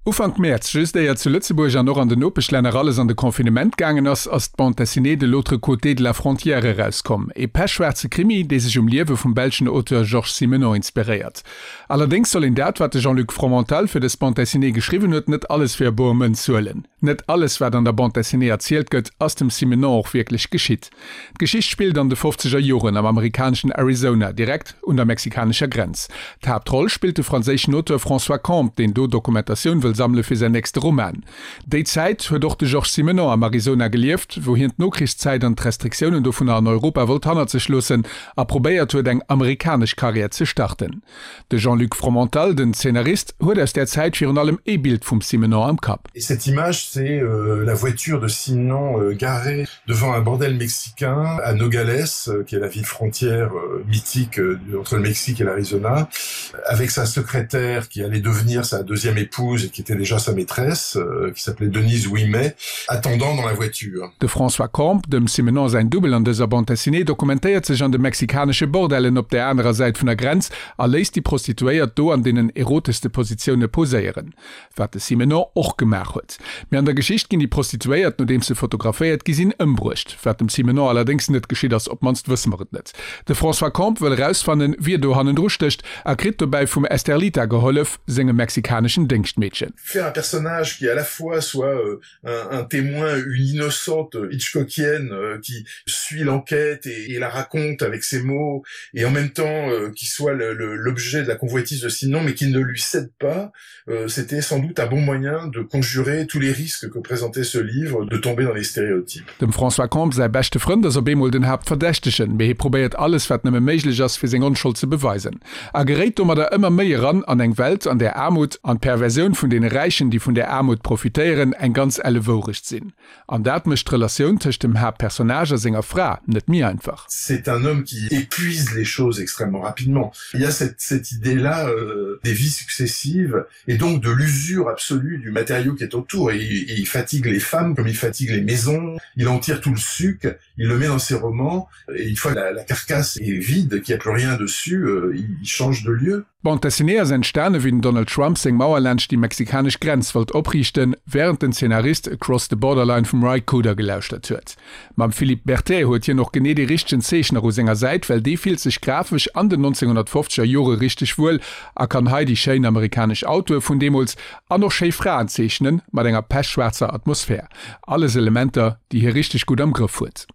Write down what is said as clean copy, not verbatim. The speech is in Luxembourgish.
Ufank Mäerz, just éier zu Lëtzebuerg an och an den Nopeschlänner alles an de Confinement gaangen ass, ass d'Bande dessinée De l'autre côté de la frontière erauskomm. E pechschwaarze Krimi, dee sech um Liewe vum belschen Auteur Georges Simenon inspiréiert. Allerdéngs soll een dat, wat de Jean-Luc Fromental fir dës Bande dessinée geschriwwen huet, net alles fir e boer Mënz huelen. Net alles, wat an der Bande dessinée erzielt gëtt, ass dem Simenon och wierklech geschitt. D'Geschicht spillt an de fofzeger Joren am amerikaneschen Arizona, direkt un der mexikanescher Grenz. D'Haaptroll spillt de franséischen Auteur François Combes, deen do Dokumentatioun wëll sammele fir säin nächste Roman. Déi Zäit huet och de Georges Simenon am Arizona gelieft, wou hien d'Nokrichszäit an d'Restriktiounen dovunner an Europa wollt hannert sech loossen a probéiert huet, eng amerikanesch Karriär ze starten. De Jean-Luc Fromental, den Zeenarist, huet aus där Zäit virun allem ee Bild vum Simenon am Kapp. Et cette image, c'est la voiture de Simenon garée devant un bordel mexicain à Nogales, qui est la ville frontière mythique entre le Mexique et l'Arizona, avec sa secrétaire qui allait devenir sa deuxième épouse et qui était déjà sa maîtresse, qui s'appelait Denise Ouimet, attendant dans la voiture. De François Combes, dem Simenon säin Dubbel an dëser Bande dessinée, dokumentéiert sech an de mexikanesche Bordellen op där anerer Säit vun der Grenz a léisst déi Prostituéiert do an deenen eroteschste Positioune poséieren. Wat de Simenon och gemaach huet. Mee an der Geschicht ginn déi Prostituéiert, nodeems se fotograféiert gi sinn, ëmbruecht. Wat dem Simenon allerdéngs net geschitt ass, op d'mannst wësse mer et net. De François Combes wëll erausfannen, wie do hannendru stécht a kritt dobäi vum Esterlita gehollef, sengem mexikaneschen Déngschtmeedchen. Faire un personnage qui à la fois soit un, un témoin, une innocente Hitchcockienne euh, qui suit l'enquête et, et la raconte avec ses mots et en même temps euh, qui soit l'objet de la convoitise de Sinon mais qui ne lui cède pas, euh, c'était sans doute un bon moyen de conjurer tous les risques que présentait ce livre de tomber dans les stéréotypes. Dem François Combes säi beschte Frënd ass op eemol den Haaptverdächtegen, mee hie probéiert alles wat nëmme méiglech ass fir seng Onschold ze beweisen a geréit domadder ëmmer méi eran an eng Welt an där Aarmut an d'Perversioun vun deene Räichen déi vun där Aarmut profitéieren eng ganz elle Wourecht sinn. An dat mécht d'Relatioun tëscht dem Haaptpersonnage a senger Fra net méi einfach. C'est un homme qui épuise les choses extrêmement rapidement. Il y a cette, cette idée-là euh, des vies successives et donc de l'usure absolue du matériau qui est autour. Et, et il fatigue les femmes comme il fatigue les maisons, il en tire tout le suc, il le met dans ses romans et une fois la, la carcasse est vide, qu'il n'y a plus rien dessus, euh, il change de lieu. D'Bande dessinée ass entstane wéi den Donald Trump seng Mauer laanscht déi mexikanesch Grenz wollt opriichten, wärend den Zeenarist Across the Borderline vum Ry Cooder gelauschtert huet. Mam Philippe Berthet huet hien och genee dee richtegen Zeechner u senger Säit, well dee fillt sech grafesch an den 1950er Jore richteg wuel a kann hei déi schéin amerikanesch Autoe vun deemools an och schéi Fraen zeechnen, mat enger pechschwaarzer Atmosphär. Alles Elementer, déi hie richteg gutt am Grëff huet.